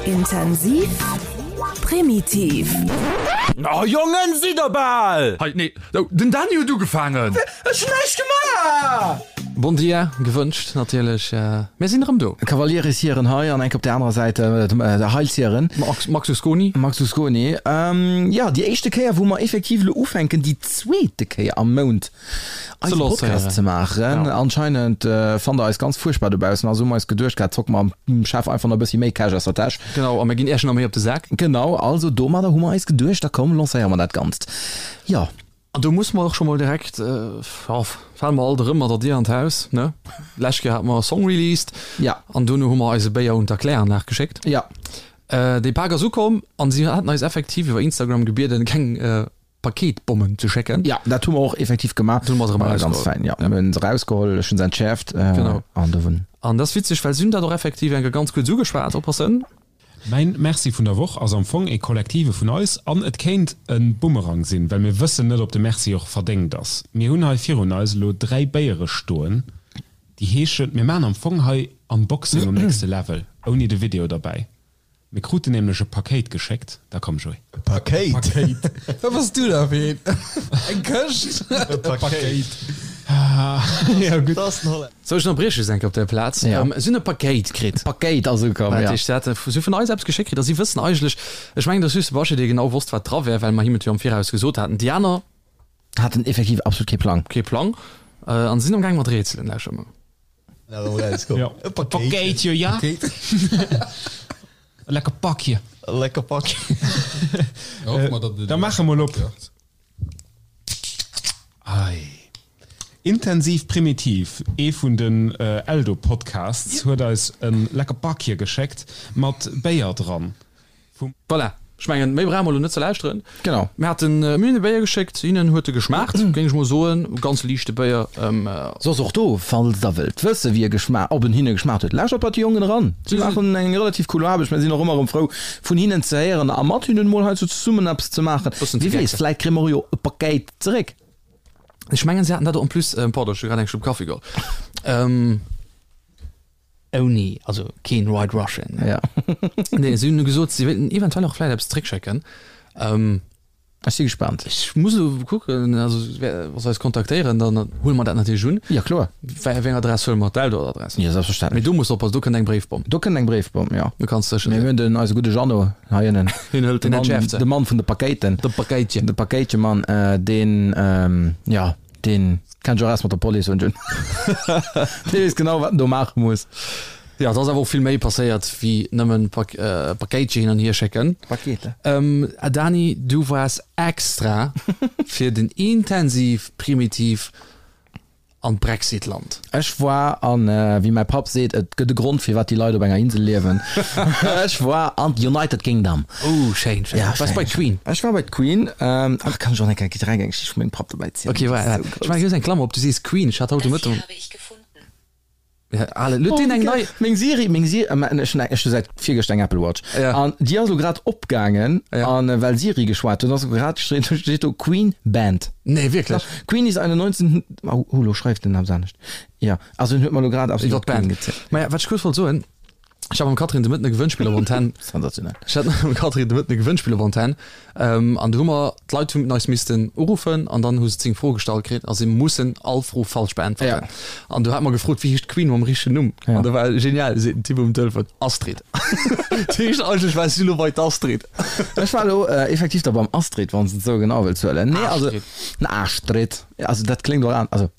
Intensiv, primitiv. Oh Jongen, sidd der bal! Hei, nee, den Dany huet ugefaangen! Ech hunn näischt gemaach! Bon dia gewënscht natierlech, mir sinn erëm do. Kavalieris-Hieren hei an enk op der anerer Säit der Heilshieren. Max Usconi. Max Usconi. Jo, déi éischte Kéier wou mer effektiv elo ufänken, déi zweete Kéier am Mount eise Podcast ze maachen. Anscheinend fannt der eis ganz fuerchtbar dobaussen, also hu mer eis geduecht gehat, zocke mer am Chef einfach nach e bëssi méi Cash aus der Täsch. Genau, a mir ginn iech nach méi op de Sak. Genau, also domadder hu mer eis geduecht, da komm lancéiere mer dat Ganzt. Jo. An do musse mer och scho mol direkt, jo, fale mer alt erëm mat der Dier an d'Haus, ne? D'lescht Kéier hate mer e Song released. Ja. An dono hu mer eise Béier un d'Erkläranlag geschéckt. Ja. Dee Pak ass ukomm an si haten eis effektiv iwwer Instagram gebieden, keng Paketbommen ze schécken. Ja, dat hu mer och effektiv gemaach. Hunn mer se erëm erausgeholl. Ganz fein, ja. Mir hunn se erausgeholl, ech hunn se entschäerft. Genau. An do hunn. An dat ass witzeg, well si hunn dat och effektiv eng Kéier ganz kuerz ugeschwat. Oppassen. Mäin Merci vun der Woch ass am Fong ee kollektive vun eis an et kéint e Bumerang sinn, well mir wëssen net op de Merci och verdéngt ass. Mir hunn hei virun eis elo 3 Béiere stoen, déi heeschen, mir maachen am Fong hei Unboxing um nächste Level, ouni de Video derbäi. Mir kruten nämlech e Pakéit geschéckt, da komm Joé. E Pakéit? Pakéit. Wat bass du da fir een? Eng Këscht? E Pakéit. Jo gutt. Sou, ech ënnerbrieche just eng Kéier op där Plaz. Ja. Si hunn e Pakéit kritt. Pakéit ass ukomm, ja. Dat heescht, si hate si hu vun eis eppes geschéckt kritt a si wëssen eigentlech, ech mengen, et ass just de Baschi, dee genau wosst, wat dra wär, well mer him et jo am Viraus gesot haten. Déi aner. Haten effektiv absolut kee Plang. Kee Plang. An sinn amgaang mat rätselen. Lauschtert mol. Ja. E Pakéitje, ja. E lecker Pakje. E lecker Pakje. Da maache mol op. Ei. Intensiv Primitiv, ee vun den Eldo-Podcasts, huet eis e lecker Pakje geschéckt mat Béier dran. Vum. Voilà, ech mengen, méi brauche mer elo net ze lauschteren. Genau. Mir haten, mir hunn e Béier geschéckt, hinnen huet e geschmaacht, géing ech mol soen. Ganz liichte Béier. Soss och do, falls der wëllt wësse wéi e geschma, ob en hinne geschmaacht huet, lauschtert bei de Jongen eran. Si maachen eng relativ cool Aarbecht. Mir sinn och ëmmer erëm frou vun hinnen ze héieren a mat hinnen mol heiansdo zesummen eppes ze maachen. Bëssen Wie weess, vläit kréie mer jo e Pakéit zeréck. Ech mengen, si haten dat och en plus, pardon, ech hu grad eng Schlupp Kaffi geholl. Ouni, also keen White Russian. Ja. Nee, si hunn gesot, si wéilten eventuell och vläicht eppes zréckschécken. Ähm, Ech si gespaant. Ech muss elo kucken, also wa se eis kontaktéieren, dann huele mer dat natierlech un. Ja, kloer. Wéi eng Adress huele mer? D'Eldo-Adress? Jo, selbstverständlech. Mee do muss de oppassen, do kënnt eng Bréifbomm. Do kënnt eng Bréifbomm, jo. Do kanns de sécher Mee sinn. mir hunn den, eise gudde Jeannot hei ënnen. Hien hëlt, De deen Mann, entschäerft se. de Mann vun de Pakéiten. De Pakéitchen. De Pakéitchemann, deen, jo. Deen kennt sech och aus mat der Police hunn. Dee weess genau wat en do maache muss. Jo, et ass awer och vill méi passéiert wéi nëmmen Pakéitche hin an hier schécken. Pakete. Dani, du waars extra fir den Intensiv Primitiv an d'Brexit-Land. Ech war an, wéi mäi Papp seet, et gëtt e Grond firwat déi Leit op enger Insel liewen. Ech war an d'United Kingdom. Oh schéin, schéin. Ja, Waars bei d'Queen? Ech war bei d'Queen. Ach, kann ech och eng Kéier direkt eng Geschicht vu mengem Papp dobäi zielen? Okay, wa, ech maache just eng Klammer op, du sees Queen, ech hat haut de Mëtten. Ja, ale, huet deen eng nei. Meng Siri, meng Siri, ech hunn eng, ech hu säit virgëschter eng Apple Watch. Ja. An déi ass elo grad opgaangen, an well Siri geschwat huet, ass elo grad, steet do Queen Band. Nee, wierklech? Queen is eine 19, oh, elo schreift en eppes anescht. Jo, also en huet mer elo grad absolut iwwer d'Queen gezielt. Maja, wat ech kuerz wollt soen, Ech hat mam Catherine de Mëtten e Gewënnspill op Antenn. Sensationell. Ech hat mam Catherine de Mëtten e Gewënnspill op Antenn. Ähm, an do hu mer, d'Leit hunn eis missten uruffen an dann hu se 10 Froe gestallt kritt a si mussen all Fro falsch beäntwerten. Ja. An do hat mer gefrot, wéi heescht d'Queen mam richtegen Numm? Ja. An do war genial, seet den Typ um Telefon, Astrid. Dat heescht, eigentlech war si elo bei d'Astrid. Ech war elo effektiv da beim Astrid, wann s de et esou genau wëlls huelen. Nee, also, Astrid. Astrid. Also dat kléngt och an, also.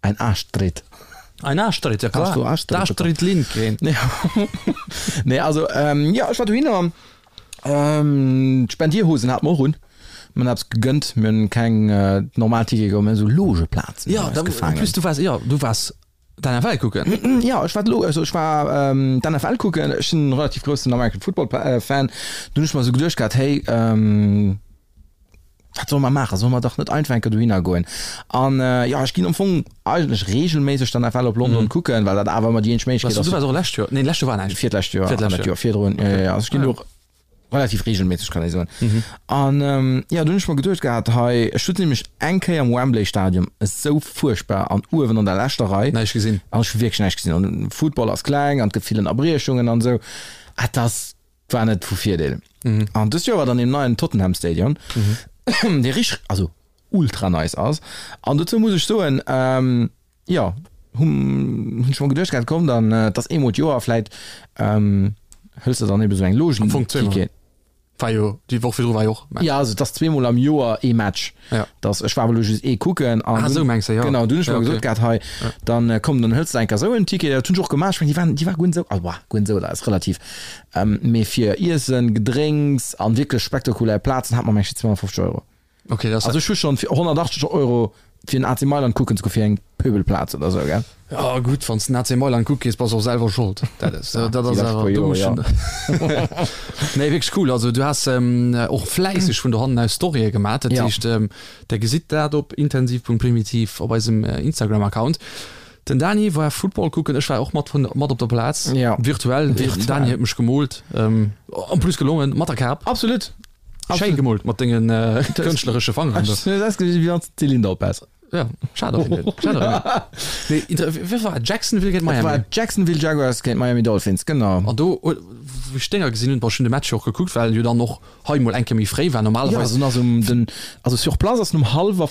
Ein Arschtritt. Ein Arschtritt, ja klar. Hast du Arschtritt D'Astrid Lindgren. Ja. Nee, also, ähm, ja, ech war dohinner. Ähm, d'Spendierhosen hat mer och un. Mir hunn eppes gegënnt. Mir hunn keng äh, normal Tickete geholl, mir hunn esou Logeplazen Ja, eis da, en gefaangen. plus du waars, ja, du waars d'NFL kucken. Ja, ech war d'Lo, also ech war ähm, d'NFL kucken. Ech sinn e relativ groussen American Football äh, Fan. Dunn hunn ech mer esou geduecht gehat, hey, ähm, Wat solle mer maachen? Solle mer dach net einfach eng Kéier dohinner goen? An jo, ech ginn am Fong eigentlech reegelméisseg dann FL op London kucken, well dat awer ëmmer déi eenzeg Méiglechkeet ass. Du waars och lescht Joer? Nee, lescht Joer war näischt. Virlescht Joer an dat Joer virdrun. Jo, jo, jo. Also ech ginn do relativ reegelméisseg, kann ee soen. An jo, dunn hunn ech mer geduecht gehat, hei, ech sutz nämlech eng Kéier am Wembley Stadium, esou fuerchtbar an uewen an der leschter Rei. Näischt gesinn. An ech hu wierklech näischt gesinn. An Football ass kleng an et gëtt vill Ënnerbriechungen an esou. Et ass. War net vu Virdeel. An dëst Joer war dann deem neien Tottenham Stadion, dee richteg, also ultra nice ass. An dozou muss ech soen, jo, hunn ech mer geduecht gehat, komm dann, et ass eemol d'Joer, vläit hëls de dann ebe sou eng Logen. Am Fong zweemol. War jo, déi Woch virdru war jo och Match. Jo, also et ass zweemol am Joer ee Match. Ja. Dass, ech war awer elo just ee kucken. An ah, esou mengs de, jo. Genau, dunn hunn ech mer gesot gehat, hei, dann komm, dann hëls de eng Kéier esou en Ticket. Dat hunn ech och gemaach. Ech mengen, déi waren, déi war guer net esou, also, guer net esou, dat ass relativ. Mee fir Iessen, Gedrénks an wierklech spektakulär Plazen hat mer, meng ech, 250 Euro. Okay, das also ech hu schon fir 180 Euro fir den AC Mailand kucken ze goen, fir eng Pöbelplaz oder sou, gell? Ja gutt, wann s den AC Mailand kucke gees, bass och selwer Schold. Dat ass, dat ass awer, do muss schon. Nee, wierklech cool. Also du has och fläisseg vun dohannen aus Storye gemaach. Dat heescht, der gesitt dat op intensiv.primitiv op eisem Instagram-Account. Den Dani war Football kucken, ech war och mat vun mat op der Plaz. Ja. Virtuell. Den Dani huet mech gemoolt. En plus gelongen, mat der Kap. Absolut. Schéi gemoolt mat dengen kënschtleresche Fangeren do. Ech hues ausgesinn wéi wann s de Zylinder op häss. Ja, schad op jeden Fall. Schad op jeden Fall. Nee, inter wéi war et? Jacksonville géint Miami? Et war Jacksonville Jaguars géint Miami Dolphins, genau. An do, wou ech d'Dénger gesinn hunn, bon, ech hunn de Match jo och gekuckt, well jo dann och hei mol eng Kéier méi fréi war normalerweis. Ja, also um den, also sur place ass en um hallwer.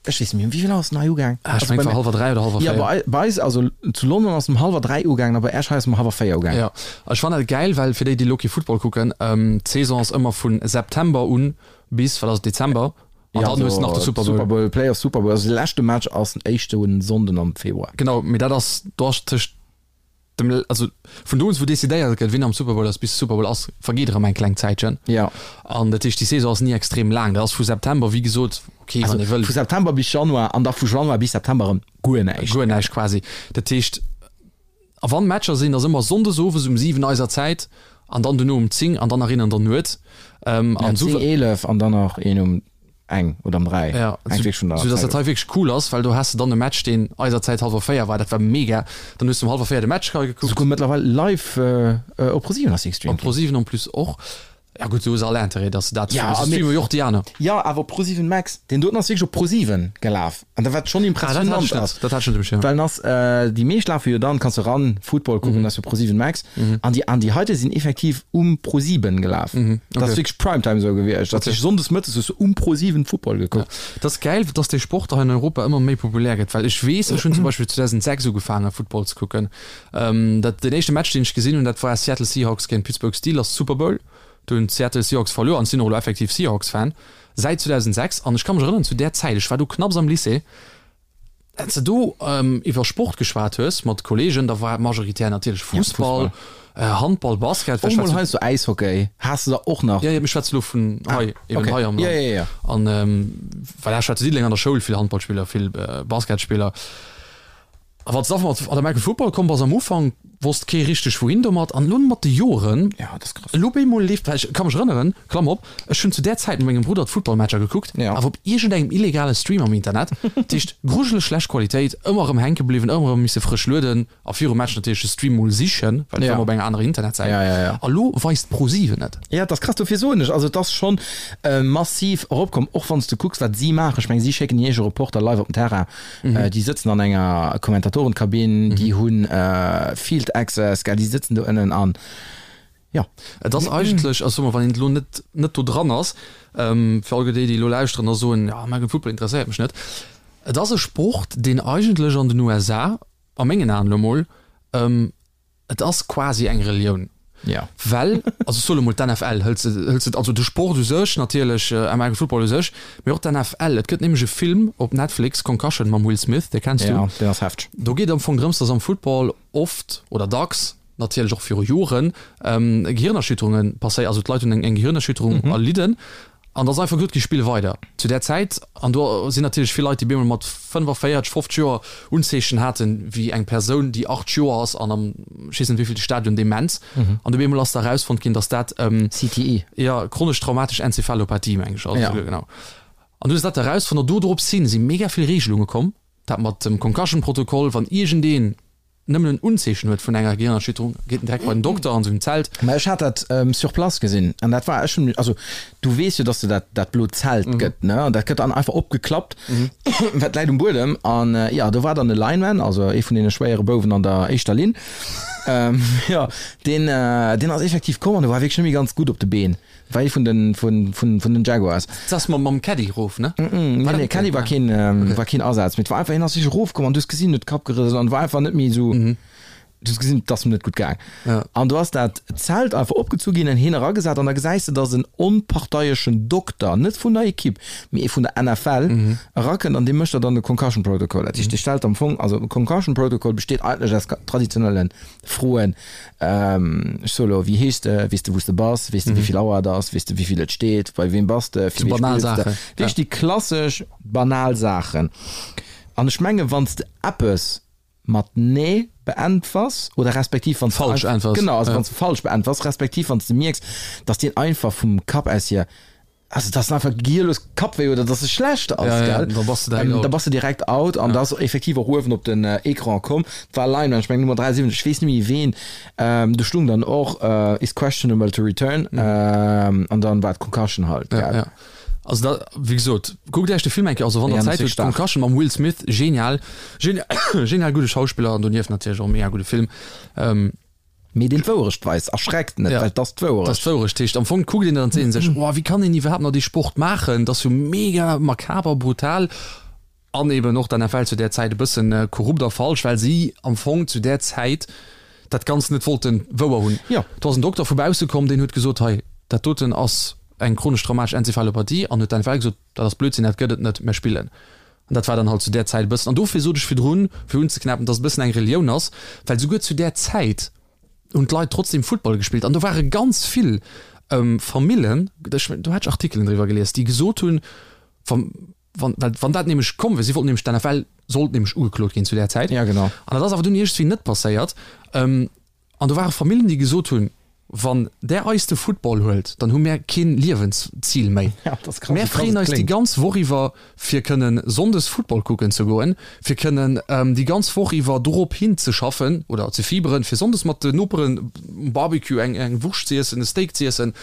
Ech weess net méi, um wéivill Auer ass en hei ugaang? Ah, ech mengen, et war hallwer 3 oder hallwer 4. Ja, bei, bei eis, also zu London ass en um hallwer 3 ugaangen a bei Esch hei ass en um hallwer 4 ugaangen. Ja, ech fannen dat gäil, well fir déi, déi elo kee Football kucken, d'Saison ass ëmmer vu September un bis, wat ass et, Dezember, an Ja, dann hues de nach de also Super Bowl. Super Bowl, Playoff Super Bowl, also de leschte Match ass den éischte Sonnden am Februar. Genau, mee dat ass, do ass tëscht Dem, also vun do un wou decidéiert gëtt wien am Super Bowl ass bis de Super Bowl ass, vergeet erëm eng kleng Zäitchen. Ja. An dat heescht déi Saison ass ni extrem laang. Dat ass vu September wéi gesot, okay wann ee wëll. Vu September bis Januar an da vu Januar bis September erëm guer näischt. Guer näischt quasi. Dat heescht, a wann Matcher sinn, ass ëmmer Sonndes owes um 7 eiser Zäit an dann duerno um 10 an dann nach een an der Nuet. An 10, 11 an dann nach een um eng oder um 3. Ja, sou dass dat hei wierklech cool ass, well do has de dann e Match, deen eiser Zäit hallwer 4 war, dat war mega. Dann hues de um hallwer 4 de Match hei gekuckt. Souguer mëttlerweil live op ProSieben ass dee gestreamt ginn. Op ProSieben en plus och. Ja gutt, do hues all Interêt, dass de dat ja, streamen, streamen jo och déi aner. Jo, awer op ProSieben Max, deen doten ass wierklech op ProSieben gelaf. An dat wat schonn impressionant ass. Dat hat ech net um Schierm. Well en ass, déi meescht lafe jo dann, kanns du ran Football kucken, ass jo ProSieben Max. An déi, an déi heite sinn effektiv um ProSieben gelaf. Dat ass wierklech Primetime esou gewiescht. Dat heescht sonndes mëttes hues du um ProSieben Football gekuckt. Dat ass gäil, dass dee Sport hei an Europa ëmmer méi populär gëtt, well ech weess, ech hunn zum Beispill 2006 ugefaange Football ze kucken. Dat, deen éischte Match, deen ech gesinn hunn, dat war Seattle Seahawks géint Pittsburgh Steelers, Super Bowl. Do hunn d'Seattle Seahawks verluer an ech sinn och elo effektiv Seahawks-Fan. Säit 2006, an ech ka mech erënneren, zu där Zäit, ech war do knapps am Lycée, wann s de do iwwer Sport geschwat hues mat Kolleegen, da war majoritär natierlech Fussball, Handball, Basket. Och mol heiansdo Äishockey has de der och nach. Jo, jo, mee ech schwätze lo vun hei, eben hei am Land. An well ech war zu Diddeleng an der Schoul, vill Handballspiller, vill Basketspiller. A wann s de da mat an American Football komm bass am Ufank, wosst kee richteg wouhin domat. An elo mat de Joren, elo op eemol leeft, well ech ka mech erënneren, Klammer op, ech hunn zu där Zäit mat mengem Brudder d'Footballmatcher gekuckt, awer op iergendengem illegale Stream am Internet, dat heescht grujeleg schlecht Qualitéit, ëmmer erëm hänke bliwwen, ëmmer erëm misse frësch lueden a virum Match natierlech de Stream mol sichen, well et war ëmmer op enger anerer Internetsäit. A lo weist ProSieben et. Jo, et ass krass, dofir soen ech, also et ass schonn massiv eropkomm, och wann s de kucks wat si maachen. Ech meng si schécken hir eege Reporter live op den Terrain. Déi sëtzen an enger Kommentatorenkabinn, déi hu Field Access, gell, déi sëtzen do ënnen an jo. Et ass eigentlech, also soe mer, wann een elo net net do dran ass, fir all déi, déi elo lauschteren a soen, jo, American Football interesséiert mech net, et ass e Sport, deen eigentlech an den USA, a mengen Aen elo mol, Et ass quasi eng Relioun. Ja. Well, also ech soe lo mol d'NFL, hëls de, hëls de, also de Sport u sech natierlech, American Football u sech, mee och d'NFL. Et gëtt nämlech e Film op Netflix, Concussion mam Will Smith, dee kenns du. Ja, deen ass hefteg. Do geet am Fong drëms, dass am Football oft oder dacks, natierlech och viru Joren, Gehirnerschütterunge passéieren, also d'Leit hunn eng Gehirnerschütterung erlidden An da ass einfach gesot gi, Spill weider. Zu där Zäit, an do sinn natierlech vill Leit, déi bemol mat 45, 50 Joer Unzeechen haten, wéi eng Persoun, déi 8 Joer ass an am, ech weess net wéivillte Stadion, Demenz. An du bemol ass da erausfonnt ginn, datt dat, CTE. Jo, chronesch traumatesch Enzephalopathie, meng ech, ass et, genau. An du hues dat da erausfonnt an do drops hin si mega vill Regelunge komm, dat mat dem Concussion-Protokoll, wann iergendeen, nëmmen en Unzeechen huet vun enger Gehirnerschütterung, geet en direkt bei den Dokter an sengem Zelt. Mä ech hat dat sur place gesinn an dat war, ech hunn, also du weess jo, dass de dat dat blot Zelt gëtt, ne, an dat gëtt dann einfach opgeklappt, wat läit um Buedem an jo, do war dann e Lineman, also ee vun deene schwéiere Bouwen an der éischter Linn. Jo, deen, deen ass effektiv komm an e war wierklech net méi ganz gutt op de Been. War ee vun den, vun, vun, vun den Jaguars. Dat ass mam, mam Caddy erof, ne? Nee, nee, Caddy war keen, war keen Asaz. Mee et war einfach, hien ass wierklech erofkomm an du hues gesinn, huet de Kapp gerëselt an war einfach net méi esou. Du hues gesinn, et ass em net gutt gaang. An do ass dat Zelt einfach opgezu ginn an hien eragesat an da gesäis de, datt en onparteieschen Dokter, net vun der Ekipp, mee ee vun der NFL, erakënnt an dee mécht der dann de Concussion Protocol. Dat heescht, dee stellt am Fong, also e Concussion Protocol besteet eigentlech aus traditionelle Froen, ech soe elo, wéi heeschs de, weess de wou s de bass, weess de wéi vill Auer et ass, weess de wéi vill et steet, bei weem bass de, fir wee spills de, wierklech déi klassesch banal Saachen. An ech menge wann s de eppes mat Nee beäntwers oder respektiv wann s de Falsch äntwers. Genau, also wann s de falsch beäntwers, respektiv wann s de mierks, dass deen einfach vum Kapp aus hier, also dass en einfach gehirlos Kappwéi huet oder dass e schlecht ass, Ja, ja, gell? da bass de direkt out. Da bass de direkt out an da ass effektiv och uewen op den Ecran komm, et war Lineman, ech mengen Nummer 73, ech weess net méi ween, do stung dann och is questionable to return an dann war et Concussion halt, gell? Ja, ja. Also da, wéi gesot, kuckt Iech de Film eng Kéier, also wann der Zäit hutt, Concussion mam Will Smith, genial, genial gudde Schauspiller an donieft natierlech och e mega gudde Film. Mee deen d'Wouerecht weist, erschreckt net, well et ass d'Wouerecht. Et ass d'Wouerecht. Heescht am Fong kuckt een dat an seet een sech, oh wéi kann een iwwerhaapt nach dee Sport maachen, dat ass jo mega makaber, brutal an eben och d'NFL zu där Zäit e bëssen korrupt a falsch, well si am Fong zu där Zäit dat Ganzt net wollten wouer hunn. Jo. Do ass en Dokter vu bausse komm, deen huet gesot, hei, dat doten ass eng chronesch traumatesch Enzephalopathie an huet d'NFL gesot, dat ass Blödsinn, dat gëtt et net, mir spillen. An dat war dann halt zu där Zäit e bëssen, an dofir sot ech virdrun, fir unzeknäppen, dass et e bëssen eng Relioun ass, well souguer zu där Zäit hunn d'Leit trotzdem Futtball gespillt an do ware ganz vill Famillen, ech, do hat ech Artikelen driwwer gelies, déi gesot hunn, wa, wann, well wann dat nämlech komm wier, si wollten nämlech, d'NFL sollt nämlech ugeklot ginn zu där Zäit. Ja, genau. An dat ass awer dunn iergendwéi net passéiert. An do ware Famillen, déi gesot hunn, Wann där eis de Football huelt, dann hu mär keen Liewenszil méi. Ja, dat ass krass, Mär wéi krass freeën et eis déi kléngt. ganz Woch iwwer, fir kënnen sonndes Football kucken ze goen, fir kënnen déi ganz Woch iwwer dorop hin ze schaffen oder ze fieberen, fir sonndes mat de Noperen um Barbecue eng eng Wurscht z'iessen, e Steak z'iessen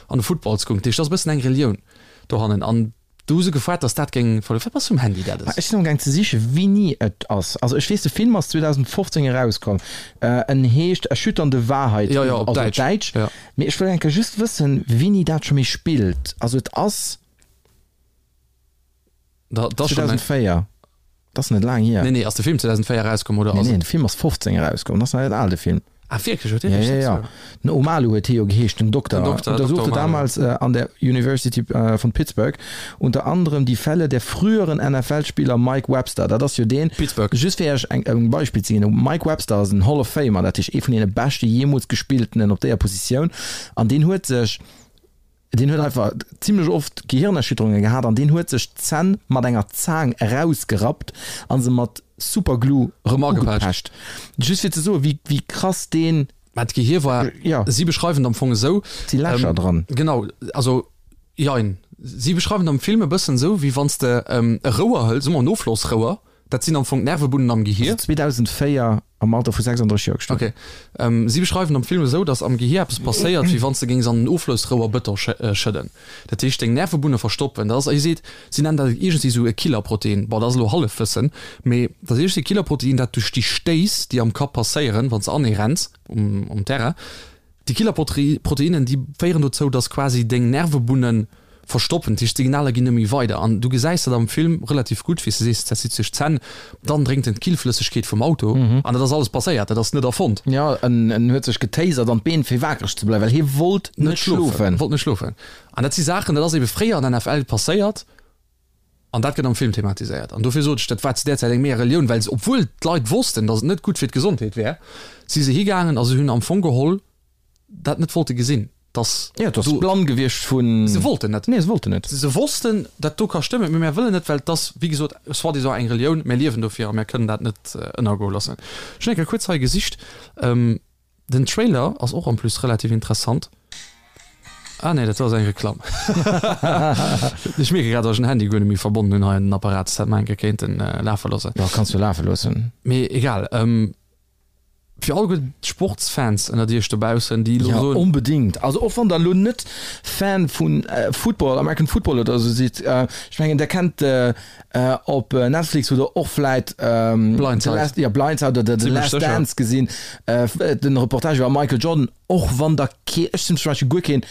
an de Football ze kucken. Dat heescht, dat ass e bëssen eng Relioun dohannen. An Do hu se gefoart, dass dat géing verluer. Wat bass du um Handy dat Ech sinn amgaang ze sichen, wéini et ass. Also ech weess, de Film ass 2015 erauskomm. En heescht Erschütternde Wahrheit, Jo, jo, op also op Däitsch. Däitsch. Jo. Mee ech wëll eng Kéier just wëssen, wéini dat scho méi spillt. Also et ass Da, dat ass schonn eng. 2004. Dat ass net laang hier. Nee, nee, ass de Film 2004 erauskomm oder Nee, ass nee, et. de Film ass 15 erauskomm, dat ass nach net al, de Film. Ah, wierklech? Huet dee Ja, sech ja, dat ja. sou. Den Omalu huet hie jo geheescht, den Dokter. Den Dokter, Untersuchte Dokter Omalu. damals an der University von Pittsburgh unter anderem die Fälle der früheren NFL-Spieler Mike Webster. Dat ass jo deen, Pittsburgh. just fir Iech eng, e Beispill ze ginn, Mike Webster ass en Hall of Famer, dat heescht ee vun deene beschte jeemools gespilltenen op déier Positioun, an deen huet sech, Deen huet einfach zimlech oft Gehirnerschütterunge gehat an deen huet sech d'Zänn mat enger Zaang erausgerappt a se mat Superglue Rëm ugepecht. agepecht. Just fir ze soen, wéi, wéi krass deen. Mä d'Gehir war, Ja. si beschreiwen et am Fong esou. Et si Lächer dran. Genau, also jein. Si beschreiwen et am Film e bëssen esou, wéi wann s de e Rouer hëls, soe mer en Offlossrouer, Dat sinn am Fong d'Nervebunnen am Gehier. Also 2004 am Alter vu 36 Joer gestuerwen. Ok. Si beschreiwen am Film esou, datt am Gehier eppes passéiert, wéi wann s de géings an en Oflossrouer Bëton schëdden. Dat heescht, deng Nervebunne verstoppen. Dat ass, hie seet, si nennen dat iergendwéi esou e Killerprotein. Bon, dat ass elo Hallefwëssen, mee dat ass iergendwéi e Killerprotein, dat duerch déi Stéiss, déi am Kapp passéieren, wann s de anee renns um Terrain, Déi Killerproteinen, déi féieren dozou, dass quasi deng Nervebunnen verstoppen, dat heescht d'Signaler ginn net méi weider. An du gesäis dat am Film relativ gutt, wéi s de sees, dat zitt sech d'Zänn, dann drénkt en d'Killflëssegkeet vum Auto an dat ass alles passéiert, dat ass net erfonnt. Jo, en en huet sech getasert an d'Been fir wakereg ze bleiwen, well hie wollt net schlofen. Wollt net schlofen. An dat si Saachen, dat ass ebe fréier an der NFL passéiert. An dat gëtt am Film thematiséiert. An dofir sot ech, dat war zu där Zäit eng mega Relioun, well se, obwuel d'Leit wossten, datt et net gutt fir d'Gesondheet wär, si se higaangen a se hunn am Fong geholl dat net wollte gesinn, datt Jo, et ass do. blann gewiescht vun. Se wollten net. Nee, se wollten net. Se wossten, dat do ka stëmmen, mee mär wëllen net, well et ass, wéi gesot, soi-disant eng Relioun, mär liewen dofir a mär kënnen dat net ënnergoe loossen. Ech hunn eng Kéier kuerz hei gesicht. Den Trailer ass och en plus relativ interessant. Ah nee, dat ass eng Reklamm. Ech mierke grad, dass ech den Handy guer net méi verbonnen hunn hei an den Apparat. Dat hätt mer eng Kéier kéinten lafe loossen. Jo, kanns du lafe loossen. Mee egal. Fir alleguer d'Sportsfans ënnert iech dobaussen, déi elo Ja, soen. onbedingt. Also och wann der elo net Fan vu Football, American Football oder esou sidd, ech mengen der kennt op Netflix oder och vläit Blindside. The Last, ja, Blindside oder The Zimmlech Last sécher. Dance gesinn, den Reportage iwwer Michael Jordan. Och wann der kee, ech sinn zum Beispill guer keen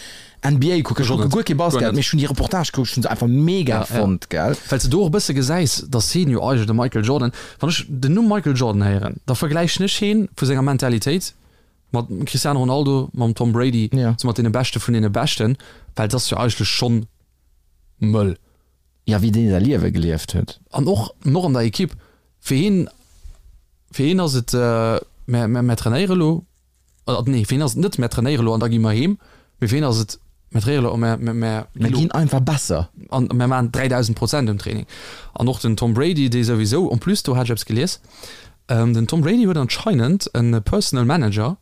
NBA kucker, ech kucke guer kee Basket, mee ech hunn déi Reportage gekuckt, ech hunn se einfach mega fonnt, gell. Well s de do och e bësse gesäis, dass hien jo eigentlech, de Michael Jordan, wann ech den Numm Michael Jordan héieren, da vergläichen ech hien vu senger Mentalitéit mat dem Cristiano Ronaldo, mam Tom Brady, sou mat deene Beschte vun deene Beschten, well et ass jo eigentlech schonn mëll. Jo, wéi deen säi Liewe gelieft huet. An och och an der Equipe, fir hien, fir hien ass et, mär, mär trainéiere elo, Oder nee, fir hien ass et net, mär trainéiere lo an da gi mer heem, mee fir hien ass et, mär trainéiere lo a mär, mär, mär Mär ginn einfach besser. An mär maachen 3.000 Prozent um Training. An och den Tom Brady, dee souwisou, en plus, do hat ech eppes gelies, den Tom Brady huet anscheinend e Personal Manager,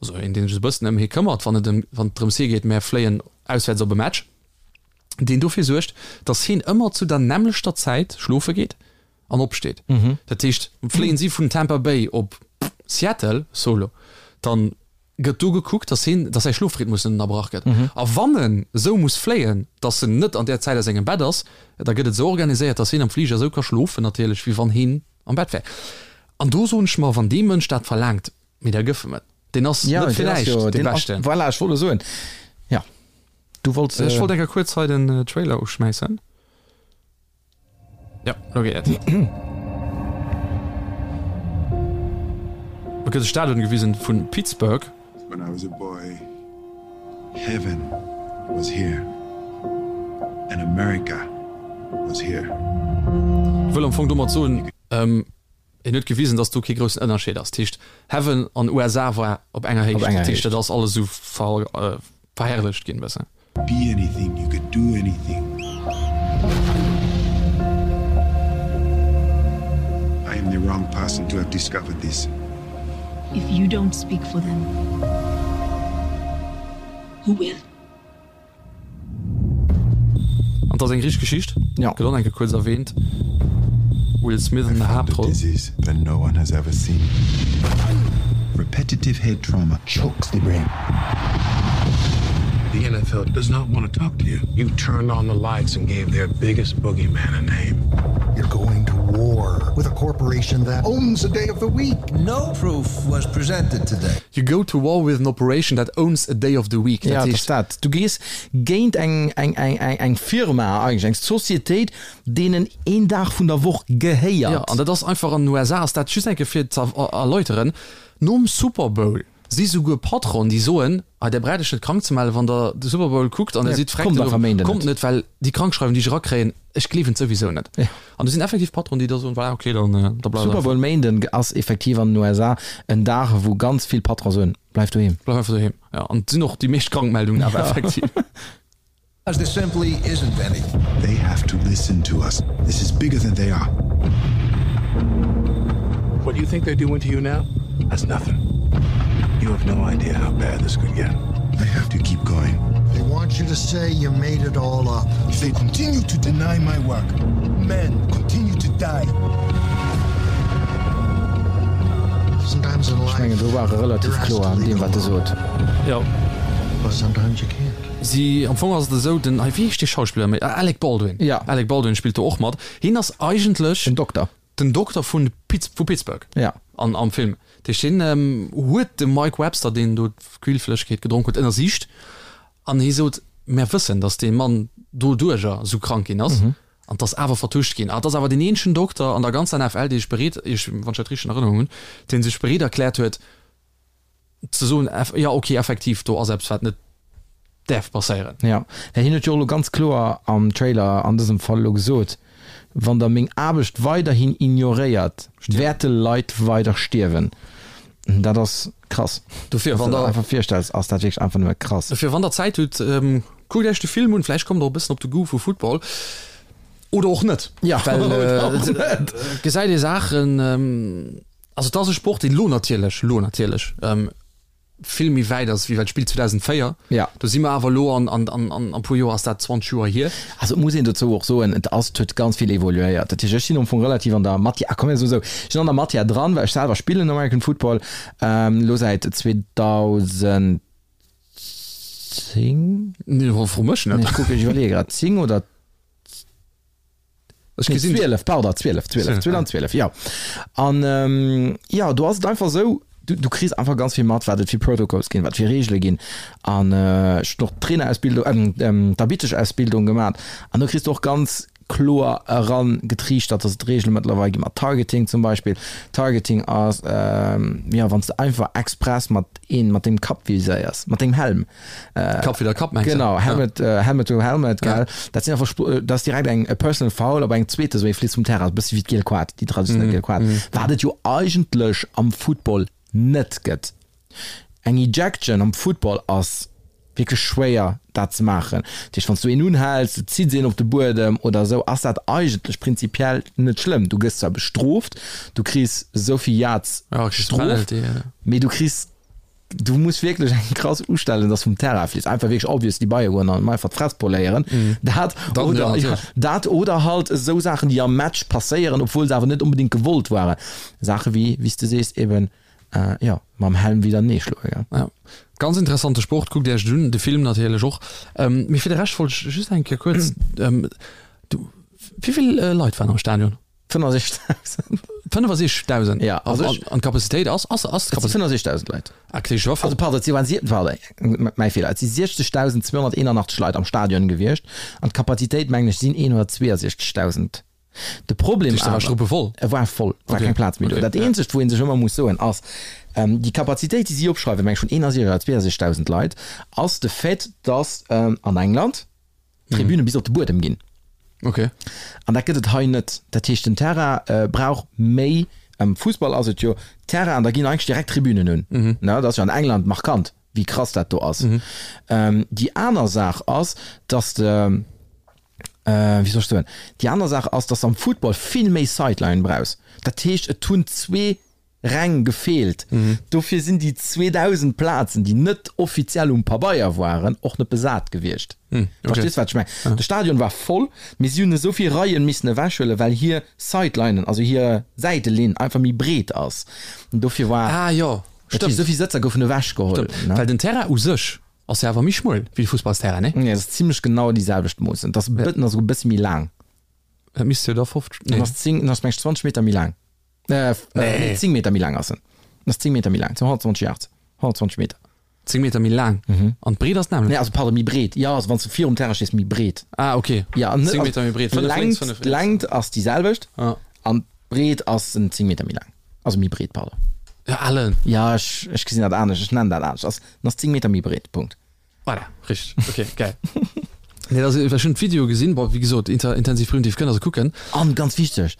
also een, dee sech e bëssen ëm hie këmmert, wann et ëm, wann et drëms hie geet, mär fléien auswäerts op e Match, deen dofir suergt, datt hien ëmmer zu der nämmlechter Zäit schlofe geet an opsteet. Dat heescht, fléien si vun Tampa Bay op Seattle, solo, dann gëtt do gekuckt, dass hien, dass säi Schlofrhythmus net ënnerbrach gëtt. A wann en esou muss fléien, dass en net an där Zäit a sengem Bett ass, da gëtt et esou organiséiert, dass hien am Fliger esou ka schlofen natierlech, wéi wann hien am Bett wär. An do soen ech mer, wann dee Mënsch dat verlaangt, mee da gëff em et. Deen ass net fir näischt dee Beschten. Voilà, ech wollt elo soen, jo, du wollts. Ech wollt eng Kéier kuerz hei den Trailer uschmäissen. Ja, lo geet et. Et gëtt e Stadion gewisen vun Pittsburgh. When I was a boy, heaven was here and America was here. Wëll am Fong domat soen, En huet gewisen, dass do kee groussen Ënnerscheed ass. Dat heescht, Heaven an USA war op enger Héicht. Dat heescht, dat ass alles esou verherrlecht ginn e bëssen. Be anything, you could do anything. I am the wrong person to have discovered this. If you don't speak for them, who will? An 't ass eng richteg Geschicht, Ja. gëtt och eng Kéier kuerz erwähnt, Will Smith an der Haaptroll. Disease that no one has ever seen. Repetitive head trauma chokes the brain. The NFL does not want to talk to you. You turned on the lights and gave their biggest boogeyman a name. You're going to war with a corporation that owns a day of the week. No proof was presented today. You go to war with an operation that owns a day of the week. Ja, dat ass dat. Du gees géint eng, eng, eng, eng, eng Firma eigentlech, eng Societéit, deenen een Dag vun der Woch gehéiert. Ja, an dat ass einfach an den USA ass dat, just eng Kéier fir ze erläuteren, nom Super Bowl si souguer Patronen, déi soen, ah, där braucht Iech net krank ze mellen, wann Der de Super Bowl kuckt an Der sidd Kommt einfach Méinden kommt net, well déi Krankschreiwung, déi ech erakréien, ech gleewen et souwisou net. An do sinn effektiv Patronen, déi da soen, voilà, okay, dann, da bleift Super Bowl Méinden ass effektiv an den USA en Dag, wou ganz vill Patronen soen, Bleif doheem. Bleif einfach doheem, jo. An et sinn och déi meescht Krankmeldungen awer effektiv. As there simply isn't any. They have to listen to us. This is bigger than they are. What do you think they're doing to you now? That's nothing. You have no idea how bad this could get. I have to keep going. They want you to say you made it all up. If they continue to deny my work, men continue to die. Sometimes in Ech life, mengen, do war e relativ you're asked kloer to an leave deem, wat e alone. sot. Jo. But sometimes you can't. Si, am Fong ass et esou, den, wéi heescht dee Schauspiller méi? Ah, Alec Baldwin. Ja. Alec Baldwin spillt do och mat. Hien ass eigentlech. Den Dokter. Den Dokter vun Pitts, vu Pittsburgh. Ja. An, am Film. Dat heescht, hien huet de Mike Webster, deen do d'Quillflëschegkeet gedronk huet, ënnersicht. An hie sot, Mär wëssen, datt dee Mann doduerjer esou krank ginn ass. An 't ass awer vertuscht ginn. An 't ass awer deen eenzegen Dokter an der ganzer NFL, dee sech bereet, ech, wann ech dat richteg an Erënnerung hunn, dee sech bereet erkläert huet, ze soen, jo ok, effektiv, do ass eppes, wat net däerf passéieren. Jo, well hien huet jo och elo ganz kloer am Trailer an dësem Fall elo gesot, Wann der meng Aarbecht weiderhin ignoréiert, wäerte Leit weider stierwen. Dat ass krass. Dofir, Wann wann s de der dat einfach virstells, ass dat wierklech einfach nëmme krass. Dofir, wann der Zäit hutt, kuckt Iech de Film un, vläicht kommt der och e bëssen op de Goût vu Football. Oder och net, Ja, well oder och et net. gesäit ee Saachen, Also et ass e Sport, deen elo natierlech, elo natierlech. vill méi wäit ass wéi well d'Spill 2004. Ja. Do si mer awer elo an an an an e puer Joer ass dat 20 Joer hier. Also et muss een dozou och soen, et ass, et huet ganz vill evoluéiert. Dat heescht, ech sinn am Fong relativ an der Matière, ah komm mir soe sou, ech sinn an der Matière dran, well ech selwer spillen American Football elo säit 2010. Nee, fro mech net. Nee, ech kucken, ech iwwerleeë grad, 10 oder. Ech gesinn. 12, pardon, 12, 12, 2012, jo. An jo, do ass et einfach esou, du, du kriss einfach ganz vill mat, wat et fir Protocols ginn, wat fir Reegele ginn. An ech hunn och d'Trainerausbildung, d'Arbittesch-Ausbildung gemaat. An do kriss du och ganz kloer erangetriichtert, dass et Reegele mëttlerweil gi mat Targeting zum Beispill. Targeting ass, jo, wann s de einfach express mat een, mat dengem Kapp viséiers, mat dengem Helm. Kapp widder Kapp mengst du? Genau, Helmet, ja. Helmet to Helmet, gell. Ja. Dat sinn einfach, dat ass direkt eng personal foul, op eng zweete sou ee Fliss vum Terrain, e bëssi wéi d'giel Kaart, déi traditionell mm. giel Kaart. Mm. Wat et jo eigentlech am Football net gëtt. Eng Ejection am Football ass wierklech schwéier dat ze maachen. Dat heescht, wann s du een unhäls, du zitts een op de Buedem oder esou, ass dat eigentlech prinzipiell net schlëmm. Du gëss zwar bestrooft, du kriss esou vill Yards ja, Strof, mee du kriss Du muss wierklech eng krass ustellen, dass vum Terrain fliss. Einfach wierklech obviously bei goen an einfach d'Fress poléieren. Dat Dann, oder, ja, ja, natierlech. dat oder halt esou Saachen, déi am Match passéieren, obwuel se awer net onbedéngt gewollt waren. Saache wéi, wéi s de sees, eben, jo, mam Helm widernee schloe, gell. Ja. Ganz interessante Sport, kuckt Iech et un, de Film natierlech och. Mee fir de Rescht wollt ech just eng Kéier kuerz, du, wéi vill Leit waren am Stadion? 65.000. 65.000? Ja, also ech, an d'Kapazitéit ass, ass, ass d'Kapazitéit? 65.000 Leit. Ah, okay, also pardon, et si waren, pardon, mäi Feeler, et si 60.281 Leit am Stadion gewiescht an d'Kapazitéit, mengen ech, sinn 162.000. De Problem awer, war struppevoll? E war voll, war okay. keng Plaz méi do. Okay, dat eenzegt, wou ee sech ëmmer muss soen, ass, ähm, déi Kapazitéit, déi si opschreiwen, meng ech vun 61 oder 62.000 Leit, ass de Fait, dass ähm, an England, Tribüne bis op de Buedem ginn. Okay. An dat gëtt et hei net. Dat heescht, den Terrain brauch méi, am Fussball ass et jo Terrain an da ginn eigentlech direkt Tribünen un. Ne, dat ass jo an England markant, wéi krass dat do ass. Déi aner Saach ass, dass de, wéi soll ech soen, déi aner Saach ass, dass de am Football vill méi Sideline brauchs. Dat heescht, et hunn zwee Reng gefeelt. Dofir sinn déi 2.000 Plazen, déi net offiziell um Pabeier waren, och net besat gewiescht. Verstees wat ech mengen? De Stadion war voll, mee si hunn esou vill Reien missen ewechhuelen, well hir Sidelinen, also hir Säitelinn einfach méi breet ass. Dofir war. Ah jo, stimmt. Esou vill Sëtzer goufen ewechgeholl. Stimmt, well den Terrain u sech ass jo awer méi schmuel wéi de Fussballsterrain, nee? Nee, et ass zimlech genau déi selwecht Moossen. Et ass e bëssen, ass esou e bësse méi laang. Dat misst jo da 50, nee. En ass 10, en ass meng ech 20 Meter méi laang. Äh, nee. 10 Meter méi laang ass en. En ass 10 Meter méi laang, 120 Yards, 120 Meter. 10 Meter méi laang? Mhm. An d'Breet ass d'nämmlecht? Nee, also pardon, méi breet. Ja, also wann s du virum Terrain stees, méi breet. Ah, okay. Ja, an 10 Meter méi breet. 5 lénks, 5 riets. D'Längt ass déi selwecht ah. an d'Breet ass en 10 Meter méi laang. Also méi breet, pardon. Ja, Alan. Ja, ech, ech gesinn dat anescht, ech nennen dat anescht. Ass, en ass 10 Meter méi breet, Punkt. Voilà, richteg. Okay, geil. Nee, also, ech hunn d'Video gesinn, bon, wéi gesot, inter, intensiv primitiv kënnt der se kucken. An ganz wichteg,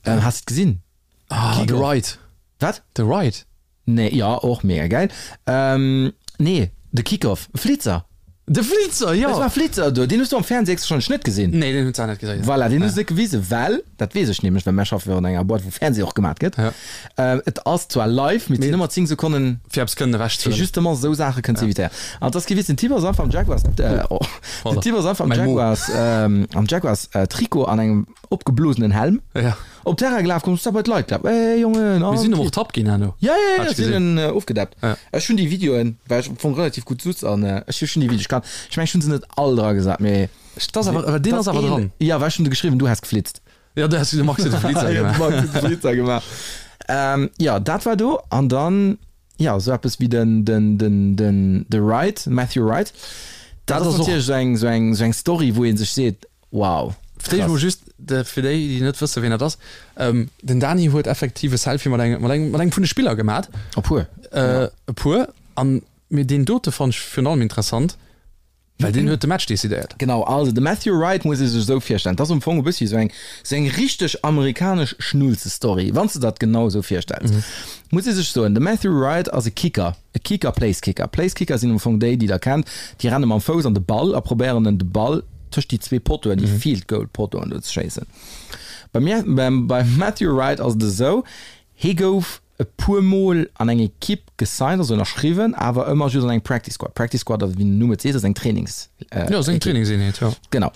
ähm, has de gesinn? Ah, The Ride. Wat? The Ride. Nee, ja, och mega geil. Ähm, nee, de Kickoff, Flitzer. De Flitzer, jo! Et war Flitzer do, deen hues du am Fernseh héchstwahrscheinlech net gesinn. Nee, deen hunn se net gesinn. Voilà, deen hu se net gewisen, well, dat weess ech nämlech, well mär schaffe jo an enger Boîte, wou Fernseh och gemat gëtt. Ja. Ähm, et ass zwar live, mee et sinn ëmmer 10 Sekonnen. Fir eppes kënnen ewech ze Fir huelen. justement esou Saache kënnen ze evitéieren. An et ass kee Witz, den Typ ass einfach am Jaguars, äh, oh, den Typ ass einfach am Mäi Mo. Jaguars, ähm, am Jaguars, äh, Trikot an engem opgeblosenen Helm. Ja. Op Terrain gelaf, komm, bei d'Leit gelaf. Ey, Jongen, Mir sinn och ertappt ginn herno. Ja, ja, ja, Hat sinn gesinn. en ofgedappt. Ja. Ech hunn déi Videoen, well ech am Fong relativ gutt sutz an ech hu schon déi Videoen. Ech kann, ech meng, ech hunn se net all dra gesat, mee. Dat ass awer, deen ass awer dran. Ja, well ech hunn de geschriwwen, du häss geflitzt. Ja, du häss, de Max huet de Flitzer Ja, de gemaach. Max huet de Flitzer gemaach. Ähm, ja, dat war do an dann, ja, esou eppes wéi den, den, den, den, de Wright, Matthew Wright. Dat Dat ass ass och. natierlech esou eng, esou eng, esou eng Story, wou ee sech seet, Wow, Fir d'éischt mol krass. just, fir déi, déi net wëssen, wien dat ass, Den Dani huet effektiv e Selfie mat engem, mat engem, mat engem vun de Spiller gemat. E puer. E puer. An, mee deen dote fonnt ech virun allem interessant, well deen huet de Match decidéiert. Genau, also de Matthew Wright muss ee sech esou virstellen, dat ass am Fong e bëssi esou eng, esou eng richteg amerikanesch Schnulzestory, wann s de dat genau esou virstells. Muss ee sech soen, de Matthew Wright ass e Kicker, e Kicker, Placekicker. Placekicker sinn am Fong déi, déi der kennt, déi renne mam Fouss an de Ball a probéieren en de Ball tëscht déi zwee Pottoen, déi Field Goal Pottoen do ze schéissen. Beim, beim Matthew Wright ass et esou, hie gouf. e puer Mol an eng Ekipp gesigned, also ënnerschriwwen, awer ëmmer just an eng Practice Squad. Practice Squad, wéi den Numm et seet, ass eng Trainings. Jo, ass eng Trainingseenheet, jo. Genau.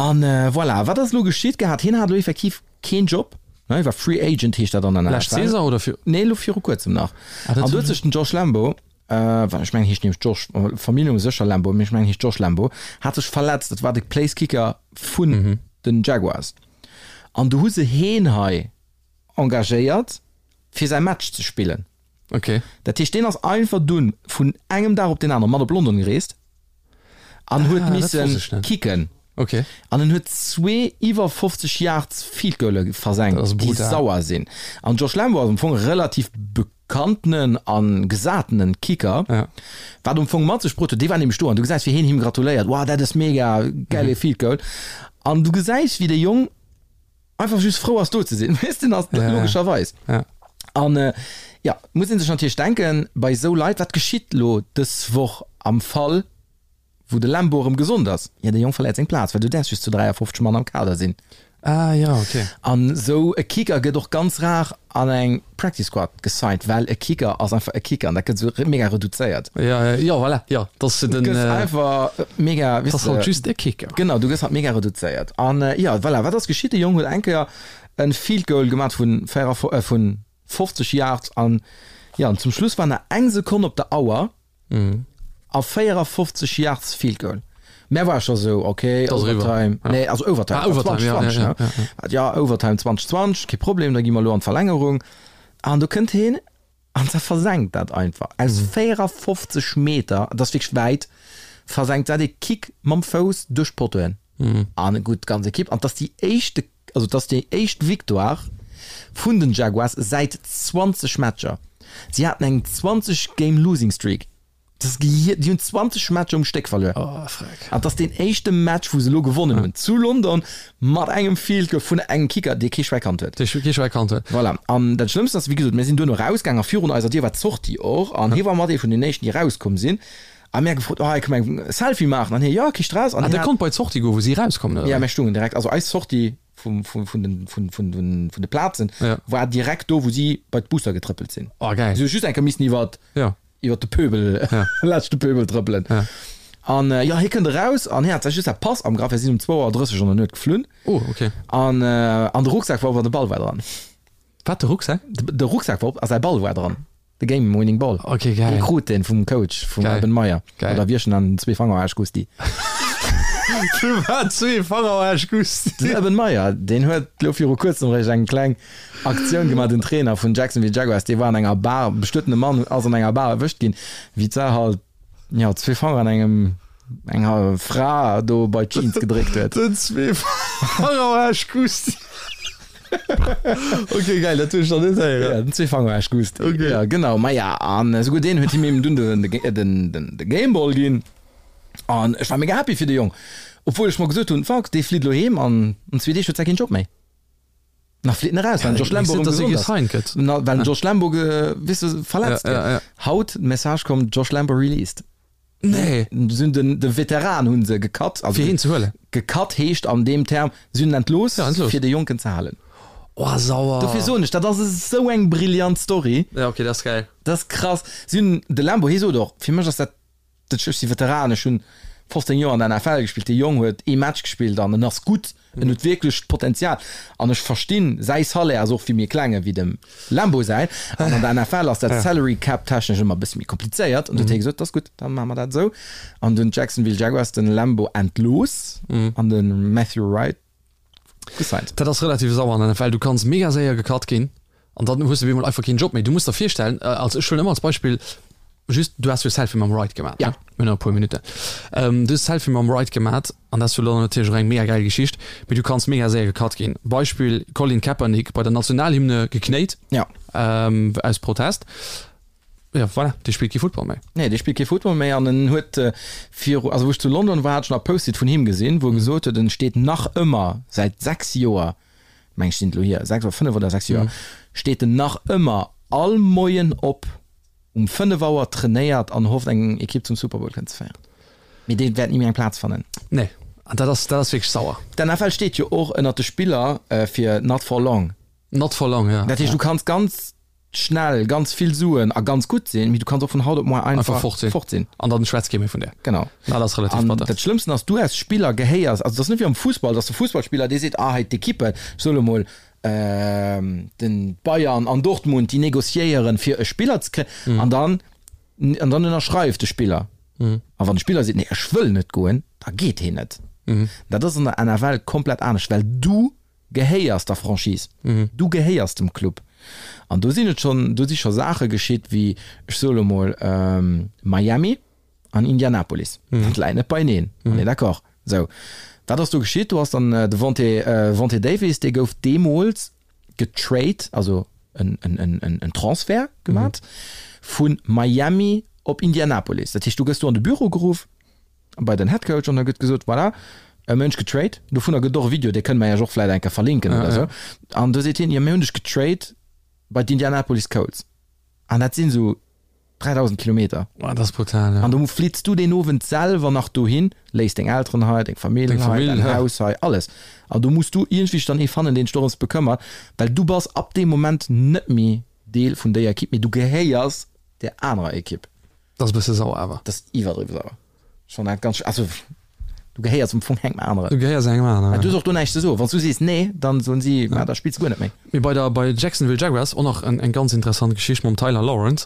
An voilà, wat ass elo geschitt gehat? Hien hat elo effektiv keen Job, ne, hie war Free Agent, heescht dat an der NFL. Lescht Saison oder vir? Nee, elo viru kuerzem nach. Ah, dat An do huet sech den Josh Lambo, well ech mengen, heescht nämlech Josh, Familljennumm sécher Lambo, mee ech mengen, heescht Josh Lambo, hat sech verletzt. Dat war de Placekicker vun den Jaguars. An do hu se heen hei engagéiert fir säi Match ze spillen. Okay. Dat heescht deen ass einfach dunn vun engem Dag op deen aneren mat op London gereest an huet Ah, dat misse wosst ech net. kicken. Okay. An en huet zwee iwwer 50 Yards Field Goale versenkt, Dat ass déi brutal. sauer sinn. An Josh Lambo ass am Fong e relativ bekanntenen a gesatenen Kicker, Ja. wat am Fong mat sech bruet huet, dee war nämlech do an du gesäis wéi heen him gratuléiert, Wow, dat ass mega, gäile Field Goal. An du gesäis wéi de Jong einfach just frou ass do ze sinn, weess de, ass Ja, logescherweis. ja. An äh, ja, muss een sech natierlech denken, bei esou Leit, wat geschitt lo dës Woch am Fall, wou de Lambo erëm gesond ass? Ja, de Jong verléiert seng Plaz, well du däerfs just zu 53 Mann am Kader sinn. Ah ja, okay. An esou e Kicker gëtt och ganz rar an eng Practice Squad gesigned, well e Kicker ass einfach e Kicker an dat gëtt esou mega reduzéiert. Ja, ja, ja, voilà, ja, dat ass den. Du gëss einfach mega, Dat ass halt just e Kicker. Genau, du gëss halt mega reduzéiert. An ja, voilà, wat ass geschitt? De Jong huet eng Kéier e Field Goal gemat vun 50 Yards an ja, an zum Schluss war nach eng Sekonn op der Auer. A 54 Yards Field Goal. Mä war scho sou, okay, Overtime. Nee, also Overtime. Ah, Overtime, ja, ja, ja, ja. Ja, Overtime 2020, kee Problem, da gi mer elo an d'Verlängerung. An do kënnt heen an da versenkt dat einfach. Aus 54 Meter, dat ass wierklech wäit, versenkt dat ee Kick mam Fouss duerch d'Pottoen. An gutt, d'ganz Ekipp. An 't ass déi éischte, also 't ass déi éischt Victoire vun den Jaguars säit 20 Matcher. Si haten eng 20 Game Losing Streak. Dat ass gehier, déi hunn 20 Matcher um Stéck verluer. Oh, freck. An 't ass deen éischte Match, wou se elo gewonnen hunn, zu London, mat engem Field Goal vun engem Kicker, dee kee Schwäi kannt huet. Dee kee Schwäi kannt huet. Voilà. An dat Schlëmmst ass, wéi gesot, mir sinn duerno erausgaang a virun eiser Dier war d'Sortie och an hie war mat ee vun den éischten, déi erauskomm sinn. A mir gefrot, oh, kënne mer eng Selfie maachen? An hie, jo, kee Stress. An ah, der konnt bei d'Sortie goen, wou si erauskommen, oder? Ja, mir stungen direkt, also eis Sortie vum, vum, vun den, vun, vun den, vun de Plazen ja. war direkt do, wou si bei d'Busser getrëppelt sinn. Oh, geil. Si hu just eng Kéier missen iwwer, ja. iwwer de Pöbel, ja. laanscht de Pöbel trëppelen. Ja. An äh, ja, hie kënnt eraus an hie hat just säi Pass am Grapp, wir sinn um 2 Auer 30 an der Nuet geflunn. Oh, okay. An, äh, an de Rucksak war op an de Ball war dran. Wat, de Rucksak? De, de Rucksak war op a säi Ball war dran. De Game Winning Ball. Ok, geil. Dee krut deen vum Coach, vum Geil. Urban Meyer. Geil. Oder wierchen an zwee Fanger Aarsch Gusti. Firwat zwee Fanger Aarsch Gusti? Den Urban Meyer, deen huet lo viru kuerzem réischt eng kleng Aktioun gemaach, den Trainer vun Jacksonville Jaguars, dee war an enger Bar, bestuetene Mann ass an enger Bar erwëscht ginn, wéi d'Sar halt, jo, zwee Fanger an engem, enger Fra do bei d'Jeans gedréckt huet. Den zwee Fanger Aarsch Gusti. Ok geil, dat hunn ech nach net héieren. Ja, den Zweefangeraasch Gust. Ok. Ja, genau. Maja, an esouguer deen huet him eben dunn den, den, den, de Gameball ginn. An ech war mega happy fir de Jong. Obwuel ech mer gesot hunn, fuck, dee flitt elo heem an an zwee Deeg huet säi keen Job méi. Nach flitt en eraus, well den Josh Lambo erëm gesond ass. Gëtt. Na, well den Josh Lambo, ge, weess de, verletzt Ja, ja, gëtt. ja. Haut, Message komm, Josh Lambo released. Nee. Si hunn den, de Veteran hu se gecut. Also fir hien ze huelen. Gecut heescht an deem Term, si hunn en entlooss, ja, entlooss. fir de Jonken ze halen. Oh, sauer. Dofir soen ech, dat ass esou eng brillant Story. Ja, okay, dat ass geil. Dat ass krass. Si hunn de Lambo, hie sot och, fir mech ass dat, dat ech si Veteran, ech hunn 15 Joer an der NFL gespillt, dee Jong huet ee Match gespillt an en ass gutt. En huet wierklech d'Potenzial an ech verstinn, säi Salaire ass och vill méi kleng ewéi dem Lambo säin. An an der NFL ass dat Salary Cap technesch ëmmer e bësse méi komplizéiert. An du huet hie gesot, dat ass gutt, da maache mer dat esou. An dunn d'Jacksonville Jaguars den Lambo entlooss an de Matthew Wright gesigned. Dat ass relativ sauer an der NFL. Du kanns mega séier gecut ginn An dann hues de op eemol einfach keen Job méi. Du muss der virstellen, als ech huelen ëmmer als Beispill just, du has jo Selfie mam Wright gemaat, Ja. ne? Mir hunn nach e puer Minutten. Du hues Selfie mam Wright gemaat an dat ass jo dann natierlech och eng mega gäil Geschicht, mee du kanns mega séier gecut ginn. Beispill, Colin Kaepernick bei der Nationalhymne geknéit, Ja. aus Protest. Ja, voilà, dee spillt kee Football méi. Nee, dee spillt kee Football méi an en huet viru, also wou ech zu London war, hat ech nach e Post-it vun him gesinn, wou e gesot huet, en steet nach ëmmer säit 6 Joer meng ech sinn et elo hier, 6 oder 5 oder 6 Joer, steet en nach ëmmer all Moien op um 5 Auer, trainéiert an hofft eng Ekipp zum Super Bowl kënnen ze féieren. Mee dee wäert ni méi eng Plaz fannen. Nee, an dat ass, dat ass wierklech sauer. D'NFL steet jo och ënnert de Spiller fir not for long. Not for long, ja. Dat heescht, du kanns ganz. schnell ganz vill Suen a ganz gutt sinn, mee du kanns och vun haut op muer einfach fort sinn. Fort sinn. An dann schwätzt kee méi vun där. Genau. Dat ass relativ An batter. dat Schlëmmsten ass, du als Spiller gehéiers, also dat ass net wéi am Fussball, dass de Fussballspiller, dee seet, ah hei d'Ekippen, ech soe lo mol, den Bayern an Dortmund, déi négociéieren fir e Spiller ze kréien, an dann, an dann ënnerschreift de Spiller. A wann de Spiller seet, nee ech wëll net goen, da geet heen net. Dat ass an der NFL komplett anescht, well du gehéiers der Franchise, du gehéiers dem Club. An do sinn et schonn, do si scho Saache geschitt wéi, ech soe lo mol, Miami an Indianapolis, dat läit net beieneen, on est d'accord. Sou, wat ass do geschitt? Do ass dann de Vontae, Vontae Davis, dee gouf deemools getrade, also en, en, en, en Transfert gemat vu Miami op Indianapolis. Dat heescht, du gëss do an de Büro geruff, bei den Head Coach an da gëtt gesot, voilà, e Mënsch getrade, dovunner gëtt och e Video, dee kënne mer iech och vläit eng Kéier verlinken oder esou. An do seet hien, jo mir hunn dech getrade bei d'Indianapolis Colts an dat sinn esou 3.000 Kilometer. Boah, dat ass brutal, ja. An do flitts du deen Owend selwer nach dohin, léiss deng Elteren hei, deng Famill Deng hei, Famill, däin ja. Haus hei, alles. An do muss du iergendwéi dann ee fannen, deen sech dorëms bekëmmert, well du bass ab deem Moment net méi Deel vun déier Ekipp, mee du gehéiers där anerer Ekipp. Dat ass e bësse sauer awer. Dat ass iwwerdriwwe sauer. Ech fannen dat ganz, also du gehéiers am Fong engem aneren. Du gehéiers engem aneren. Du hues och do näischt ze soen. Wann s du sees nee, dann soen si, ma da spills du guer net méi. Mee bei der, bei Jacksonville Jaguars och nach eng ganz interessant Geschicht mam Tyler Lawrence.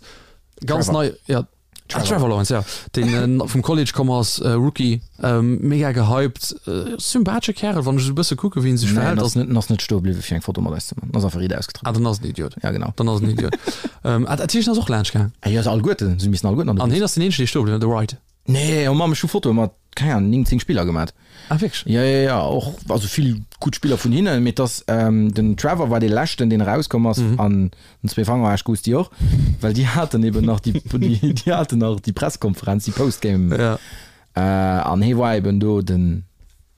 Ganz Trevor. nei, ja. Ah, Trevor Lawrence, ja. Deen vum College komm ass, Rookie, mega gehypt, sympathesche Kärel, wann ech esou e bësse kucke wéi en sech Nee, en verhält. ass net, en ass net stoe bliwwe fir eng Foto mat eis ze man. En ass einfach riit ausgetrëppelt. Ah, dann ass en Idiot. Ja, genau. Dann ass en Idiot. Ah, dat heescht, en ass och laanscht gaang? Ah jo, se alleguerten, se missen alleguerten an de An Bus. hien ass deen eenzegen, dee stoe bliwwen, de Wright? Nee, oh Mamm, ech hu Fotoe mat, keng Ahnung, 9, 10 Spiller gemat. Ah, wierklech? Jo, jo, jo, och, also vill gutt Spiller vun hinnen, mee et ass, den Trevor war dee leschten, deen erauskomm ass, an den zwee Fanger Aarsch Gusti och, well déi haten eben nach déi, déi haten nach déi Presskonferenz, déi Postgame, Ja. an hee war eben do den,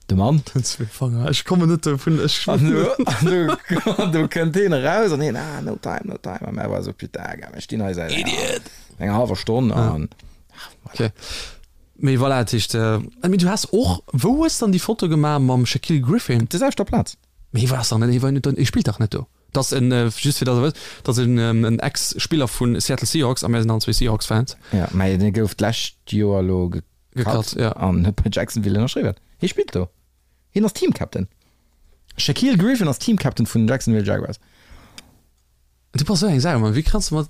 de Mann. Den zwee Fanger, ech kommen net dovun, ech. An do, an do, an do kënnt heen eraus an heen, ah, no time, no time, a mär war esou, putain, gell, mir stinn hei säit enger, enger hallwer Stonn an. Okay. Mee voilà, dat heescht, mee du has och, wou hues dann déi Foto gemaach mam Shaquille Griffin? Op der selwechter Plaz. Mee hie war ass dach net, hie war net, hie spillt dach net do. Dat ass en, just fir datt der wësst, dat ass en en Ex-Spiller vu Seattle Seahawks a mär sinn allen zwee Seahawks-Fans. Ja, mä dee gouf d'lescht Joer elo gecut Gecut, ja. an huet bei Jacksonville ënnerschriwwen. Hie spillt do. Hien ass Team-Captain. Shaquille Griffin ass Team-Captain vun den Jacksonville Jaguars. Du bass sou eng Sau, Mann. Wéi kanns du mat,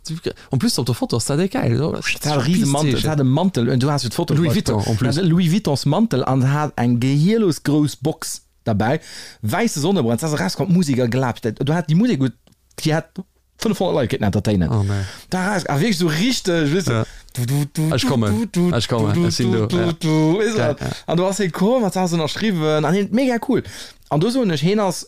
en plus op der Foto ass dat déck gäil. Et hat e riese Mantel, et hat e Mantel un, du has jo d'Foto. Louis Vuitton en plus. Louis Vuittons Mantel an hat eng gehierlos grouss Box derbäi, wäisse Sonnebrand, se ass erauskomm, d'Musek a gelaabt, du hat déi Musek, déi hat 500 Leit kéinten entertainen. Oh nee. Da eraus, a wierklech sou richteg, weess de, du, du, du, Ech kommen, du, du, ech kommen, du, ech sinn do, du, ja. du, weess de, Geil, ja. an du ass hie komm, hat d'Saach ënnerschriwwen an hien, mega cool. An do soen ech, hien ass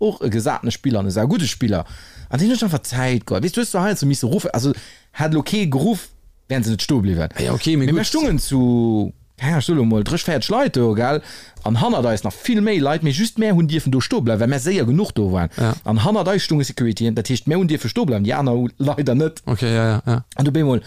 och e gesatene Spiller an e saugudde Spiller an deen huet sech einfach Zäit geholl. Weess du hues zwar heiansdo misse ruffen, also hätt elo kee geruff, wären se net stoe bliwwen. Ja okay, mee Mee mir gutt. stungen zu, keng Ahnung, ech soe lo mol 30, 40 Leit do, gell, an hannert eis nach vill méi Leit, mee just mär hunn dierfen do stoe bleiwen, well mär séier genuch do waren. Ja. An hannert eis stunge Securityen, dat heescht mär hunn dierfe stoe bleiwen, déi aner hu leider net. Okay, ja, ja, ja. An du bemol,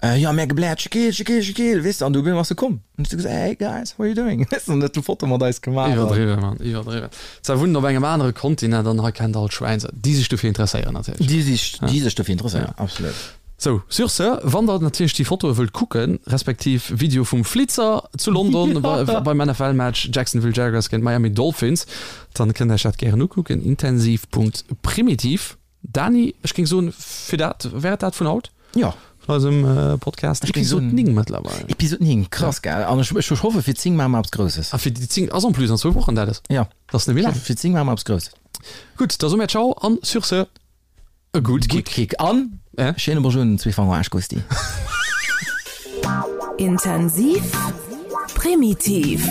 Äh, jo, mär gebläert, Shaquille, Shaquille, Shaquille, weess de, an du op eemol ass e komm. An hues du gesot, hey guys, how are you doing? Weess de, an huet du Foto mat eis gemaach. Iwwerdriwwen, Mann, iwwerdriwwen. Zwar wunnen op engem anere Kontinent an hei kennt all Schwäin se, déi sech dofir interesséieren natierlech. Déi sech, déi sech dofir interesséieren, absolut. Sou, sur ce, wann der natierlech déi Fotoe wëllt kucken, respektiv Video vum Flitzer zu London beim NFL-Match Jacksonville Jaguars géint Miami Dolphins, dann kënnt der iech dat gären ukucken, intensiv.primitiv. Dani, ech géing soen, fir dat wär et dat vun haut. Jo. Vun eisem Podcast. Ech géing soen, Episod 9 mëttlerweil. Episod 9, krass, gell? An ech, ech hoffe fir 10 maache mer eppes Grousses. A fir déi 10 ass en plus an zwou Wochen dat ass. Jo. Dat ass net méi laang. Fir 10 maache mer eppes Grousses. Gutt, da soe mir Ciao an sur ce, e gutt Gutt Kick. Kick an Äh? schéine Bonjour un den Zweefanger Aarschgusti. Intensiv, primitiv.